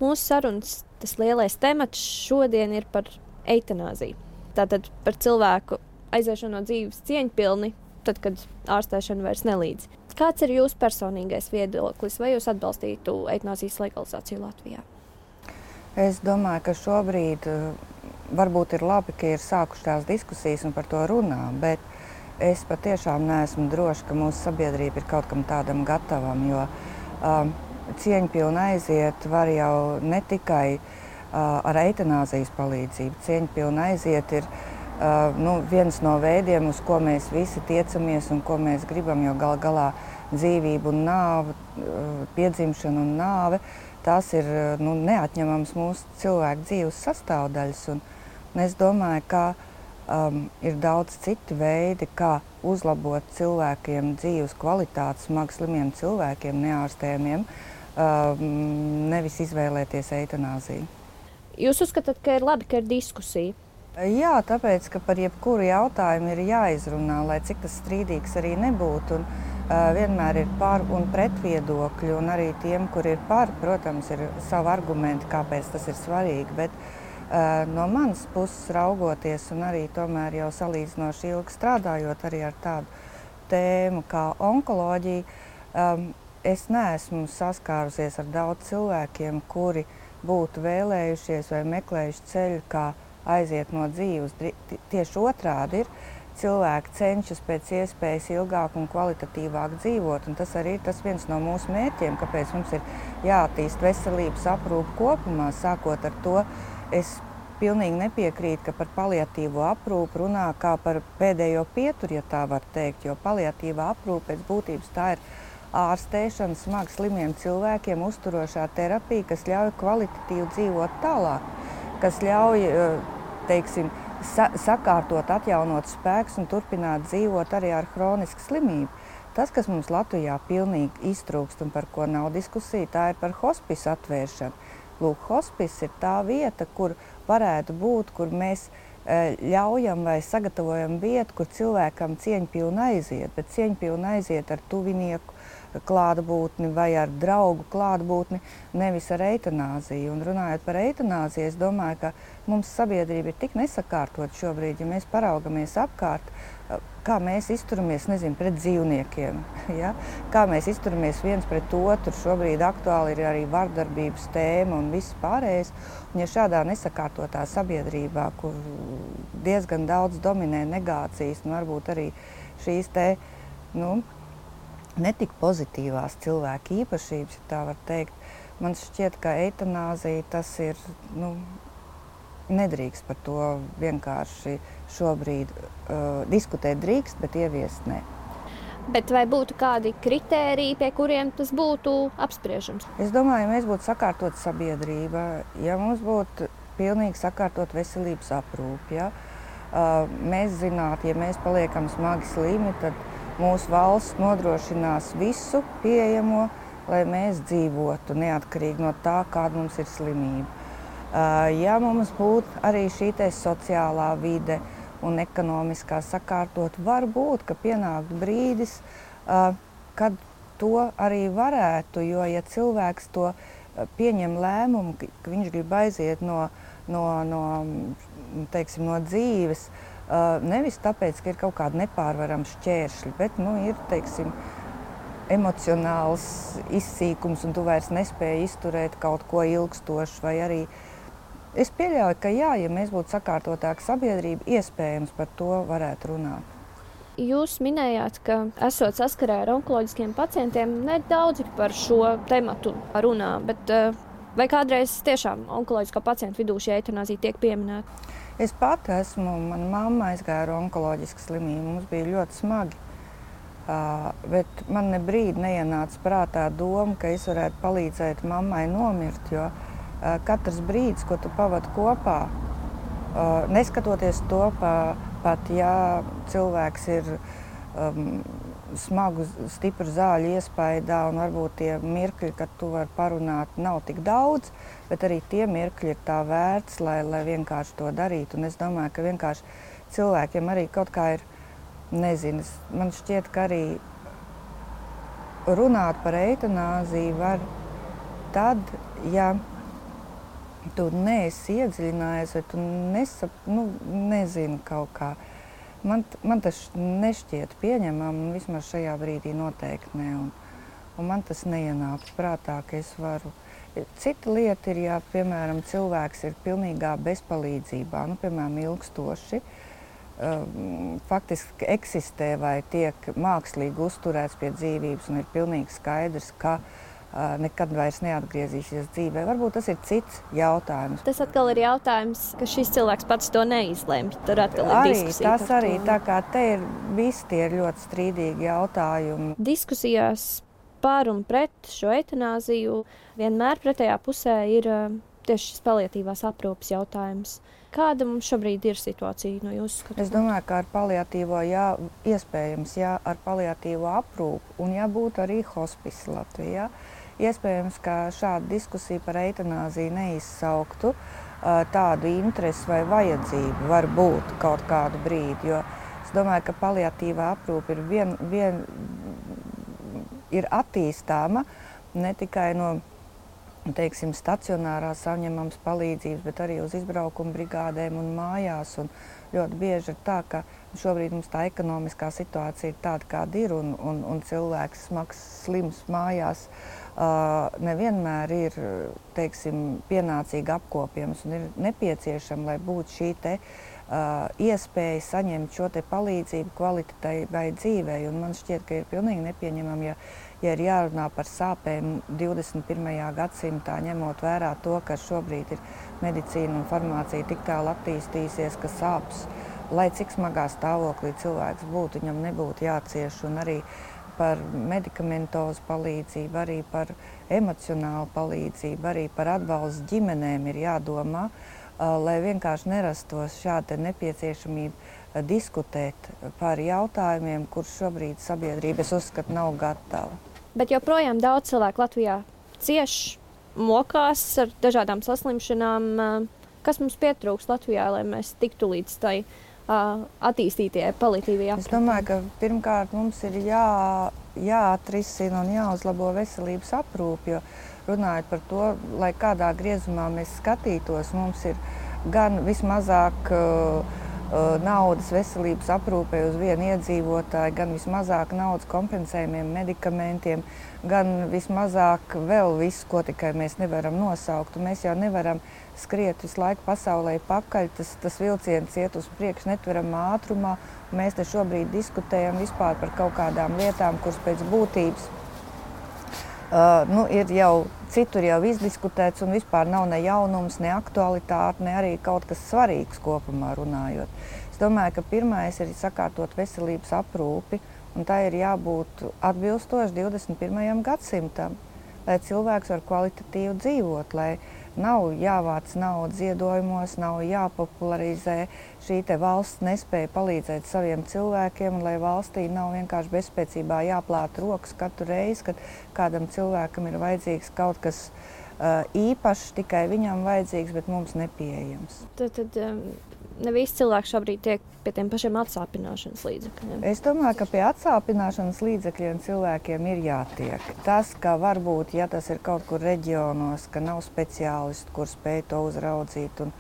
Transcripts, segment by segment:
Mūsu sarunas tas lielais temats šodien ir par eitanāziju. Tātad par cilvēku aiziešanu no dzīves cieņpilni, tad, kad ārstēšana vairs nelīdz. Kāds ir jūsu personīgais viedoklis, vai jūs atbalstītu eitanāzijas legalizāciju Latvijā? Es domāju, ka šobrīd varbūt ir labi, ka ir sākušās diskusijas un par to runā, bet es patiešām neesmu droša, ka mūsu sabiedrība ir kaut kam tādam gatavam, jo cieņpilni aiziet var jau ne tikai ar eitanāzijas palīdzību. Cieņpilni aiziet ir viens no veidiem, uz ko mēs visi tiecamies un ko mēs gribam, jo gal galā dzīvība un nāve, piedzimšana un nāve, tās ir neatņemams mūsu cilvēku dzīves sastāvdaļas. Un es domāju, ka ir daudz citi veidi, kā uzlabot cilvēkiem dzīves kvalitāti, smagi slimiem cilvēkiem, neārstējamiem, nevis izvēlēties eitanāziju. Jūs uzskatāt, ka ir labi, ka ir diskusija? Jā, tāpēc, ka par jebkuru jautājumu ir jāizrunā, lai cik tas strīdīgs arī nebūtu. Vienmēr ir par un pret viedokļi, un arī tiem, kur ir par, protams, ir savi argumenti, kāpēc tas ir svarīgi. Bet no manas puses raugoties, un arī tomēr jau salīdzinoši ilgi strādājot arī ar tādu tēmu kā onkoloģija, es neesmu saskārusies ar daudz cilvēkiem, kuri būtu vēlējušies vai meklējuši ceļu, kā aiziet no dzīves. Tieši otrādi ir. Cilvēki cenšas pēc iespējas ilgāk un kvalitatīvāk dzīvot, un tas arī ir viens no mūsu mērķiem, kāpēc mums ir jāattīst veselības aprūpe kopumā. Sākot ar to, es pilnīgi nepiekrītu, ka par paliatīvo aprūpi runā kā par pēdējo pieturi, ja tā var teikt, jo paliatīvā aprūpe pēc būtības tā ir ārstēšana smagi slimiem cilvēkiem, uzturošā terapija, kas ļauj kvalitatīvi dzīvot tālāk, kas ļauj, teiksim, sakārtot, atjaunot spēkus un turpināt dzīvot arī ar hronisku slimību. Tas, kas mums Latvijā pilnīgi iztrūkst un par ko nav diskusija, tā ir par hospisu atvēršanu. Lūk, hospis ir tā vieta, kur varētu būt, kur mēs ļaujam vai sagatavojam vietu, kur cilvēkam cieņpilni aiziet, bet cieņpilni aiziet ar tuvinieku klātbūtni vai ar draugu klātbūtni, nevis ar eitanāziju. Un runājot par eitanāziju, es domāju, ka mums sabiedrība ir tik nesakārtot šobrīd, ja mēs paraugamies apkārt, kā mēs izturamies, pret dzīvniekiem, ja? Kā mēs izturamies viens pret otru. Šobrīd aktuāli ir arī vardarbības tēma un viss pārējais. Un ja šādā nesakārtotā sabiedrībā, kur diezgan daudz dominē negācijas un varbūt arī šīs netik pozitīvās cilvēku īpašības, ja tā var teikt, man šķiet, ka eitanāzija tas ir, nedrīkst par to vienkārši šobrīd diskutēt drīkst, bet ieviest nē. Bet vai būtu kādi kritēriji, pie kuriem tas būtu apspriežams? Es domāju, ja mēs būtu sakārtot sabiedrība, ja mums būtu pilnīgi sakārtot veselības aprūpi, ja? Mēs zinātu, ja mēs paliekam smagi slimi, tad mūsu valsts nodrošinās visu pieejamo, lai mēs dzīvotu neatkarīgi no tā, kāda mums ir slimība. Ja mums būtu arī šī sociālā vide un ekonomiskā sakārtot, var būt, ka pienāktu brīdis, kad to arī varētu, jo ja cilvēks to pieņem lēmumu, ka viņš grib aiziet no dzīves, nevis tāpēc, ka ir kaut kādi nepārvarami šķēršļi, bet ir, emocionāls izsīkums un tu vairs nespēji izturēt kaut ko ilgstošu, vai arī es pieļauju, ka jā, ja mēs būtu sakārtotāka sabiedrība, iespējams par to varētu runāt. Jūs minējāt, ka esot saskarē ar onkoloģiskiem pacientiem, nedaudzi par šo tematu runā, bet vai kādreiz tiešām onkoloģiskā pacientu vidū šī eitanāzija tiek pieminēta? Es pati esmu, mana mamma aizgāja ar onkoloģisku slimību, mums bija ļoti smagi. Bet man ne brīdi neienāca prātā doma, ka es varētu palīdzēt mammai nomirt, jo katrs brīdis, ko tu pavadi kopā, neskatoties to, pat ja cilvēks ir smagu, stipru zāļu iespaidā un varbūt tie mirkļi, kad tu vari parunāt, nav tik daudz, bet arī tie mirkļi ir tā vērts, lai vienkārši to darītu. Un es domāju, ka vienkārši cilvēkiem arī kaut kā ir, nezinu, man šķiet, ka arī runāt par eitanāziju var tad, ja tu neesi iedziļinājies, vai tu nezini kaut kā. Man tas nešķiet pieņemam, vismaz šajā brīdī noteikti ne. Un man tas neienāks prātā, ka es varu. Cita lieta ir, ja, piemēram, cilvēks ir pilnīgā bezpalīdzībā, piemēram, ilgstoši, faktiski eksistē vai tiek mākslīgi uzturēts pie dzīvības un ir pilnīgi skaidrs, ka nekad vairs neatgriezīsies dzīvē. Varbūt tas ir cits jautājums. Tas atkal ir jautājums, ka šis cilvēks pats to neizlemj. Tur atkal ir diskusija. Tas arī, tā kā te ir visi tie ļoti strīdīgi jautājumi. Diskusijās par un pret šo eitanāziju vienmēr pretējā pusē ir tieši šis paliatīvās aprūpes jautājums. Kāda mums šobrīd ir situācija no jūsu skatījuma? Es domāju, ka ar paliatīvo, iespējams, ar paliatīvo aprūpu un būtu arī hospice Latvijā. Iespējams, ka šāda diskusija par eitanāziju neizsauktu tādu interesi vai vajadzību var būt kaut kādu brīdi, jo es domāju, ka paliatīvā aprūpe ir attīstāma ne tikai no, teiksim, stacionārās saņemams palīdzības, bet arī uz izbraukuma brigādēm un mājās. Un ļoti bieži ir tā, ka šobrīd mums tā ekonomiskā situācija ir tāda, kāda ir, un cilvēks smags, slims mājās nevienmēr ir, teiksim, pienācīgi apkopjams un ir nepieciešama, lai būtu šī te iespēja saņemt šo te palīdzību kvalitatīvai dzīvei. Un man šķiet, ka ir pilnīgi nepieņemami, ja ir jārunā par sāpēm 21. gadsimtā, ņemot vērā to, ka šobrīd ir medicīna un farmācija tik tālu attīstījusies, ka sāpes, lai cik smagā stāvoklī cilvēks būtu, viņam nebūtu jācieš, un arī par medikamentozu palīdzību, arī par emocionālu palīdzību, arī par atbalstu ģimenēm ir jādomā, lai vienkārši nerastos šāda nepieciešamība diskutēt par jautājumiem, kurus šobrīd sabiedrība, es uzskatu, nav gatava. Bet joprojām daudz cilvēku Latvijā cieš, mokās ar dažādām saslimšanām. Kas mums pietrūks Latvijā, lai mēs tiktu līdz tai attīstītajai paliatīvajai aprūpei? Es domāju, ka pirmkārt mums ir jāatrisina un jāuzlabo veselības aprūpe, jo runājot par to, lai kādā griezumā mēs skatītos, mums ir gan vismazāk naudas veselības aprūpei uz vienu iedzīvotāju, gan vismazāk naudas kompensējumiem medikamentiem, gan vismazāk vēl visu, ko tikai mēs nevaram nosaukt. Un mēs jau nevaram skriet visu laiku pasaulē pakaļ, tas vilciens iet uz priekšu netveramā ātrumā. Mēs te šobrīd diskutējam vispār par kaut kādām lietām, kuras pēc būtības ir jau citur jau izdiskutēts un vispār nav ne jaunums, ne aktualitāte, ne arī kaut kas svarīgs kopumā runājot. Es domāju, ka pirmais ir sakārtot veselības aprūpi, un tā ir jābūt atbilstoši 21. gadsimtam, lai cilvēks var kvalitatīvi dzīvot, lai nav jāvāc naudu ziedojumos, nav jāpopularizē šī te valsts nespēja palīdzēt saviem cilvēkiem, un lai valstī nav vienkārši bezspēcībā jāplāta rokas katru reizi, kad kādam cilvēkam ir vajadzīgs kaut kas īpašs, tikai viņam vajadzīgs, bet mums nepieejams. Tad ne visi cilvēki šobrīd tiek pie tiem pašiem atsāpināšanas līdzekļiem. Es domāju, ka pie atsāpināšanas līdzekļiem cilvēkiem ir jātiek. Tas, ka varbūt, ja tas ir kaut kur reģionos, ka nav speciālistu, kur spēj to uzraudzīt un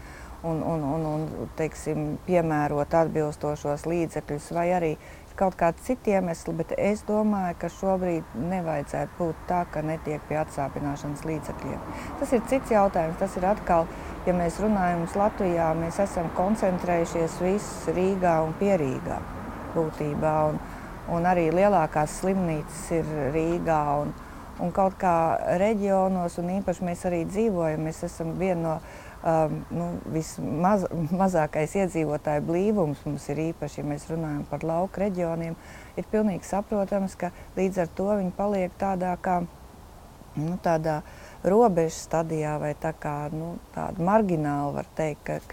teiksim, piemērot atbilstošos līdzekļus, vai arī kaut kādi citi iemesli, bet es domāju, ka šobrīd nevajadzētu būt tā, ka netiek pie atsāpināšanas līdzekļiem. Tas ir cits jautājums, tas ir atkal, ja mēs runājam Latvijā, mēs esam koncentrējušies viss Rīgā un Pierīgā būtībā, un arī lielākās slimnīcas ir Rīgā, un kaut kā reģionos, un īpaši mēs arī dzīvojam, mēs esam viena no vismazākais iedzīvotāju blīvums mums ir īpaši, ja mēs runājam par lauku reģioniem, ir pilnīgi saprotams, ka līdz ar to viņi paliek tādā kā tādā robežas stadijā vai tā kā tāda margināla, var teikt,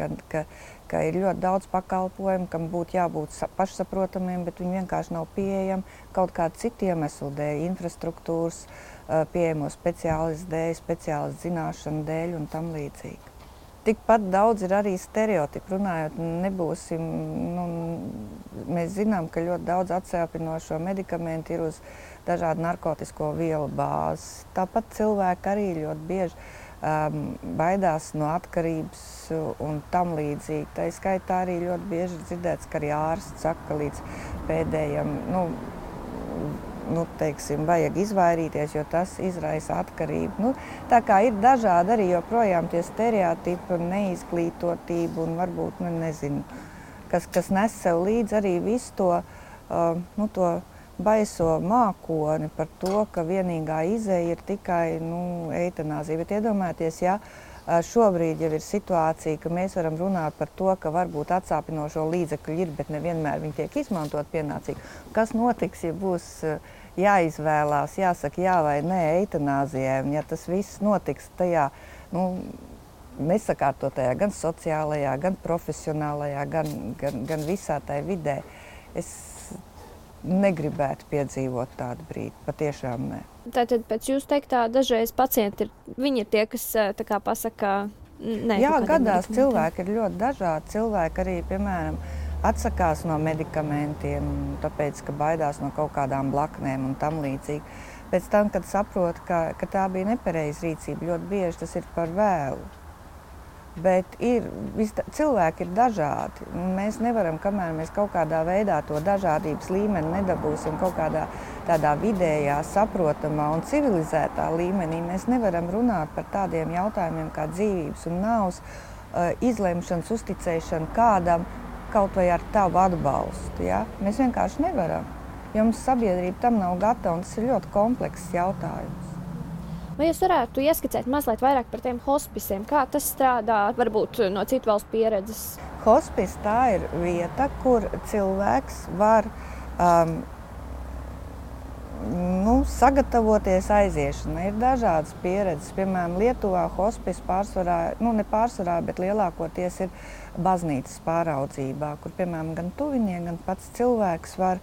ka ir ļoti daudz pakalpojumu, kam būtu jābūt pašsaprotamiem, bet viņi vienkārši nav pieejami kaut kādu citu iemeslu dēļ, infrastruktūras, pieejamo speciālistu dēļ, speciālistu zināšanu dēļ un tam līdzīgi. Tikpat daudz ir arī stereotipi. Runājot, mēs zinām, ka ļoti daudz atsāpinošo medikamentu ir uz dažādu narkotisko vielu bāzes. Tāpat cilvēki arī ļoti bieži baidās no atkarības un tam līdzīgi. Tā skaitā arī ļoti bieži dzirdēts, ka arī ārsts saka, ka līdz pēdējam, teiksim, vajag izvairīties, jo tas izraisa atkarību. Tā kā ir dažādi arī joprojām tie stereotipi un neizglītotība un varbūt, nezinu, kas nes sev līdz arī visu to baiso mākoni par to, ka vienīgā izeja ir tikai eitanāzija. Bet iedomājieties, ja šobrīd jau ir situācija, ka mēs varam runāt par to, ka varbūt atsāpinošo līdzekļu ir, bet nevienmēr viņi tiek izmantot pienācīgi. Kas notiks, ja būs jāizvēlās, jāsaka jā vai nē eitanāzijai, un ja tas viss notiks tajā, nesakārtotajā, gan sociālajā, gan profesionālajā, gan visā tai vidē, es negribētu piedzīvot tādu brīdi, patiešām nē. Tātad pēc jūs teiktā dažreiz pacienti viņi ir tie, kas tā kā pasaka nē. Jā, gadās cilvēki ir ļoti dažādi. Cilvēki arī, piemēram, atsakās no medikamentiem, tāpēc, ka baidās no kaut kādām blaknēm un tam līdzīgi. Pēc tam, kad saprot, ka tā bija nepareiza rīcība, ļoti bieži tas ir par vēlu. Bet cilvēki ir dažādi. Mēs nevaram, kamēr mēs kaut kādā veidā to dažādības līmeni nedabūsim kaut kādā tādā vidējā, saprotamā un civilizētā līmenī, mēs nevaram runāt par tādiem jautājumiem kā dzīvības un nāves izlemšanas, uzticēšana kādam kaut vai ar tavu atbalstu. Ja? Mēs vienkārši nevaram, jo mums sabiedrība tam nav gatava, un tas ir ļoti komplekss jautājums. Vai jūs varētu ieskicēt mazliet vairāk par tiem hospisiem? Kā tas strādā, varbūt no citu valstu pieredzes? Hospis tā ir vieta, kur cilvēks var sagatavoties aiziešanai. Ir dažādas pieredzes. Piemēram, Lietuvā hospis ne pārsvarā, bet lielākoties ir baznīcas pāraudzībā, kur, piemēram, gan tuvinieki, gan pats cilvēks var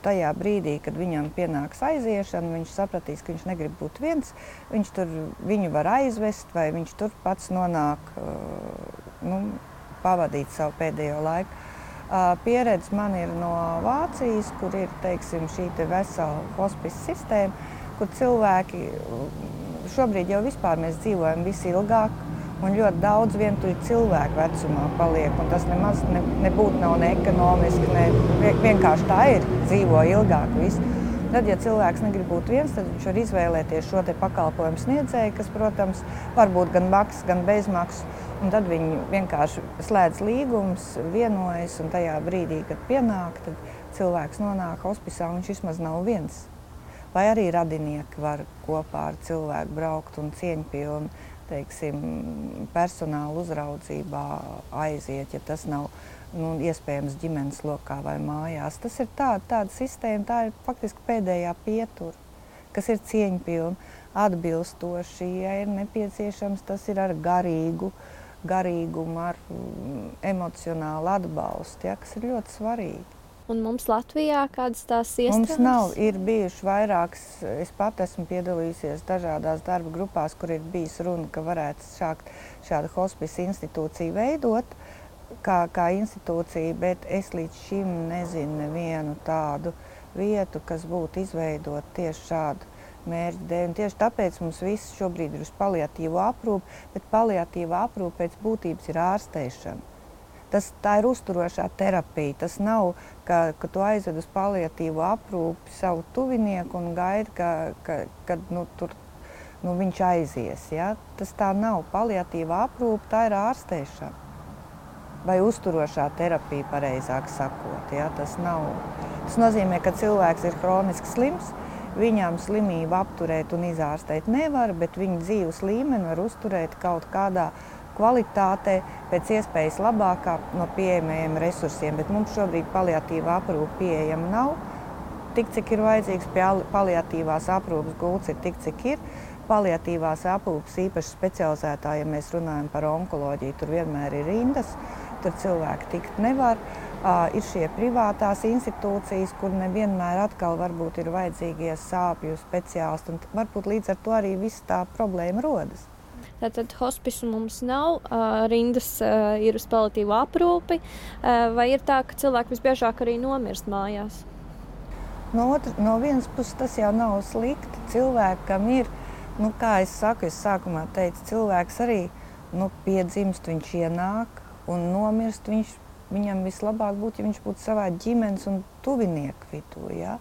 tajā brīdī, kad viņam pienāks aiziešana, viņš sapratīs, ka viņš negrib būt viens, viņu var aizvest, vai viņš tur pats nonāk, pavadīt savu pēdējo laiku. Pieredze man ir no Vācijas, kur ir, teiksim, šī vesela hospice sistēma, kur cilvēki, šobrīd jau vispār mēs dzīvojam visilgāk, un ļoti daudz vientuļu cilvēku vecumā paliek, un tas nemaz nebūtu nav ne ekonomiski, vienkārši tā ir, dzīvo ilgāk viss. Tad, ja cilvēks negrib būt viens, tad viņš var izvēlēties šo te pakalpojumu sniedzēju, kas, protams, var būt gan maksas, gan bezmaksas, un tad viņi vienkārši slēdz līgumus, vienojas, un tajā brīdī, kad pienāk, tad cilvēks nonāk hospisā, un viņš vismaz nav viens. Vai arī radinieki var kopā ar cilvēku braukt un cieņpilni, teiksim, personāla uzraudzībā aiziet, ja tas nav iespējams ģimenes lokā vai mājās. Tas ir tāda sistēma, tā ir faktiski pēdējā pietura, kas ir cieņpilna, atbilstoši, ja ir nepieciešams, tas ir ar garīgumu, ar emocionālu atbalstu, kas ir ļoti svarīgi. Un mums Latvijā kādas tās iestādes? Mums nav, ir bijuši vairākas, es pat esmu piedalījusies dažādās darba grupās, kur ir bijis runa, ka varētu šādu hospice institūciju veidot kā institūciju, bet es līdz šim nezinu nevienu tādu vietu, kas būtu izveidot tieši šādu mērķu dēļ. Un tieši tāpēc mums viss šobrīd ir uz paliatīvo aprūpi, bet paliatīvā aprūpe pēc būtības ir ārstēšana. Tā ir uzturošā terapija. Tas nav, ka tu aizved uz paliatīvo aprūpi savu tuvinieku un gaidi, kad viņš aizies. Ja? Tas tā nav. Paliatīvā aprūpe, tā ir ārstēšana. Vai uzturošā terapija, pareizāk sakot. Ja? Tas nozīmē, ka cilvēks ir hroniski slims, viņam slimību apturēt un izārstēt nevar, bet viņa dzīves līmeni var uzturēt kaut kādā kvalitātē, pēc iespējas labākā no pieejamajiem resursiem, bet mums šobrīd paliatīvā aprūpe pieejama nav. Tik, cik ir vajadzīgs, paliatīvās aprūpes gults ir tik, cik ir. Paliatīvās aprūpes īpaši specializētā, ja mēs runājam par onkoloģiju, tur vienmēr ir rindas, tur cilvēki tikt nevar. Ir šie privātās institūcijas, kur nevienmēr atkal varbūt ir vajadzīgie sāpju speciālisti, un varbūt līdz ar to arī viss tā problēma rodas. Tātad hospisu mums nav, rindas ir uz paliatīvo aprūpi, vai ir tā, ka cilvēki visbiežāk arī nomirst mājās? No vienas puses tas jau nav slikti. Cilvēkam ir Nu, kā es saku, es sākumā teicu, cilvēks arī piedzimst, viņš ienāk un nomirst. Viņam vislabāk būtu, ja viņš būtu savā ģimenes un tuvinieku vidū. Ja?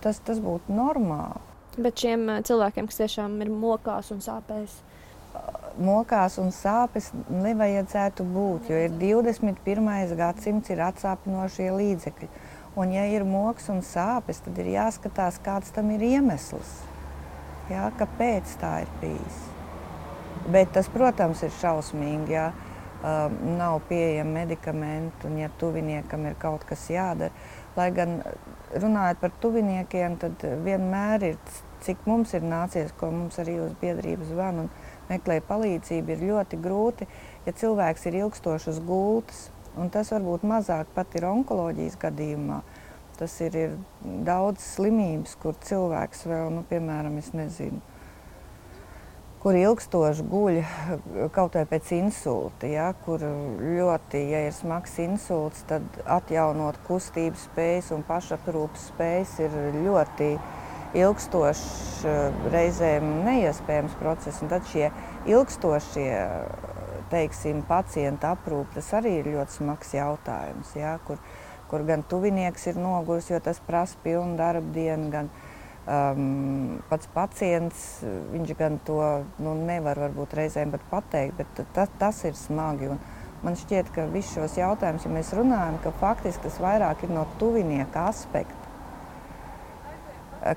Tas būtu normāli. Bet šiem cilvēkiem, kas tiešām ir mokās un sāpēs? Mokās un sāpes nevajadzētu būt, jo ir 21. gadsimts, ir atsāpinošie līdzekļi. Un ja ir moks un sāpes, tad ir jāskatās, kāds tam ir iemesls. Jā, kāpēc tā ir bijis. Bet tas, protams, ir šausmīgi, ja nav pieejami medikamenti un ja tuviniekam ir kaut kas jādara. Lai gan runājot par tuviniekiem, tad vienmēr ir, cik mums ir nācies, ko mums arī uz biedrības zvanu un meklē palīdzību, ir ļoti grūti, ja cilvēks ir ilgstoši uz gultas. Un tas varbūt mazāk pat ir onkoloģijas gadījumā. Tas ir daudz slimības, kur cilvēks vēl, piemēram, es nezinu, kur ilgstoši guļ kaut vai pēc insulta, ja, kur ļoti, ja ir smags insults, tad atjaunot kustības spējas un pašaprūpes spējas ir ļoti ilgstošs, reizēm neiespējams process. Un tad šie ilgstošie, teiksim, pacienta aprūpe, tas arī ir ļoti smags jautājums, ja, kur gan tuvinieks ir noguris, jo tas prasa pilnu darba dienu, gan pats pacients, viņš gan to nevar varbūt reizēm pat pateikt, bet tas ir smagi. Un man šķiet, ka visus šos jautājumus, ja mēs runājam, ka faktiski tas vairāk ir no tuvinieka aspekta.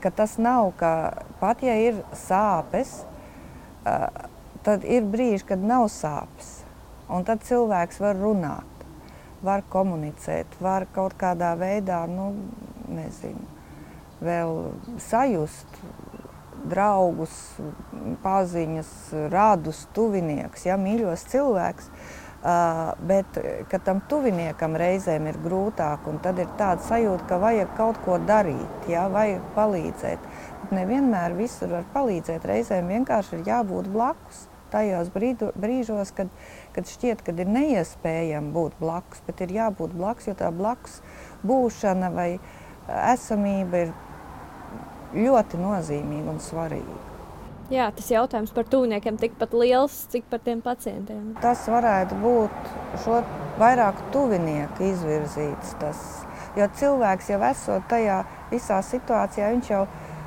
Ka tas nav, ka pat ja ir sāpes, tad ir brīži, kad nav sāpes. Un tad cilvēks var runāt, var komunicēt, var kaut kādā veidā, nezinu, vēl sajust draugus, paziņas, radus, tuviniekus, ja, mīļos cilvēks, bet ka tam tuviniekam reizēm ir grūtāk, un tad ir tāda sajūta, ka vajag kaut ko darīt, ja, vajag palīdzēt. Bet nevienmēr visur var palīdzēt, reizēm vienkārši ir jābūt blakus. Tajos brīžos, kad šķiet, kad ir neiespējami būt blakus, bet ir jābūt blakus, jo tā blakus būšana vai esamība ir ļoti nozīmīga un svarīga. Jā, tas jautājums par tuviniekiem tikpat liels, cik par tiem pacientiem. Tas varētu būt vairāk tuvinieku izvirzīts. Jo cilvēks jau esot tajā visā situācijā, viņš jau,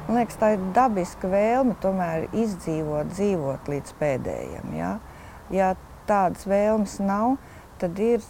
man liekas, tā ir dabiska vēlme tomēr dzīvot līdz pēdējiem. Ja? Ja tādas vēlmes nav, tad ir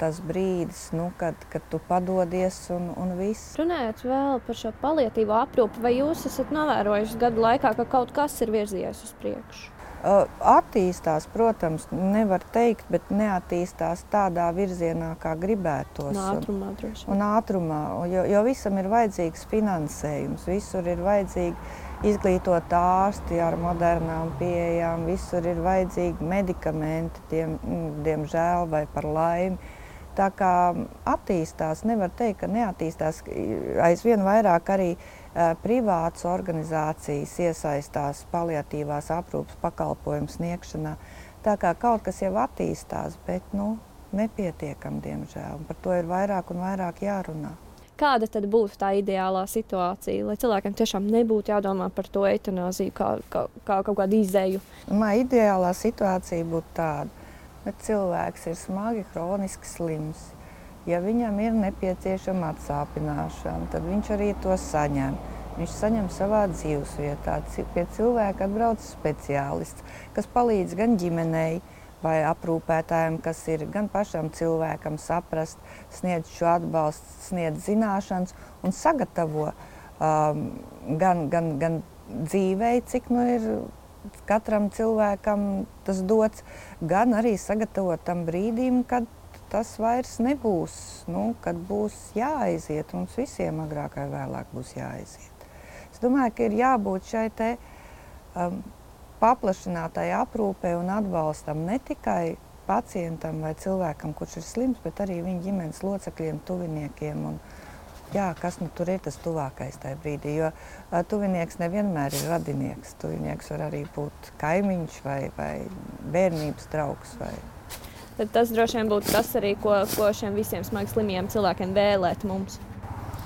tas brīdis, kad tu padodies un viss. Runājot vēl par šo paliatīvo aprūpi, vai jūs esat novērojuši gadu laikā, ka kaut kas ir virzījies uz priekšu? Attīstās, protams, nevar teikt, bet neattīstās tādā virzienā, kā gribētos. Ātrumā droši. Un ātrumā, jo visam ir vajadzīgs finansējums, visur ir vajadzīgi izglītot ārsti ar modernām pieejām, visur ir vajadzīgi medikamenti, diemžēl vai par laimi. Tā kā attīstās, nevar teikt, ka neattīstās. Aizvien vairāk arī privātas organizācijas iesaistās paliatīvās aprūpes pakalpojumu sniegšanā. Tā kā kaut kas jau attīstās, bet nepietiekami, diemžēl. Par to ir vairāk un vairāk jārunā. Kāda tad būtu tā ideālā situācija, lai cilvēkiem tiešām nebūtu jādomā par to eitanāziju kā kaut kādu izēju? Ideālā situācija būtu tāda. Bet cilvēks ir smagi hroniski slims. Ja viņam ir nepieciešama atsāpināšana, tad viņš arī to saņem. Viņš saņem savā dzīvesvietā. Pie cilvēka atbrauc speciālists, kas palīdz gan ģimenei vai aprūpētājiem, kas ir gan pašam cilvēkam saprast, sniedz šo atbalstu, sniedz zināšanas un sagatavo gan dzīvei, cik ir katram cilvēkam tas dots, gan arī sagatavot tam brīdim, kad tas vairs nebūs, kad būs jāaiziet. Mums visiem agrāk vai vēlāk būs jāaiziet. Es domāju, ka ir jābūt šai paplašinātai aprūpei un atbalstam ne tikai pacientam vai cilvēkam, kurš ir slims, bet arī viņa ģimenes locekļiem, tuviniekiem. Kas tur ir tas tuvākais tajā brīdī, jo tuvinieks nevienmēr ir radinieks. Tuvinieks var arī būt kaimiņš vai bērnības draugs. Tad tas droši vien būtu tas arī, ko šiem visiem smagi slimiem cilvēkiem vēlēt mums.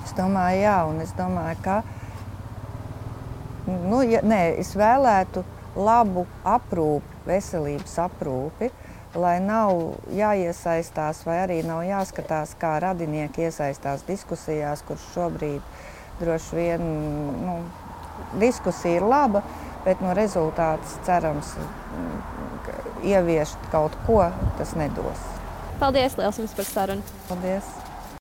Es domāju, jā, un es domāju, ka Es vēlētu labu aprūpi, veselības aprūpi, lai nav jāiesaistās vai arī nav jāskatās, kā radinieki iesaistās diskusijās, kurš šobrīd droši vien diskusija ir laba, bet rezultāts cerams ieviest kaut ko, tas nedos. Paldies liels jums par sarunu! Paldies!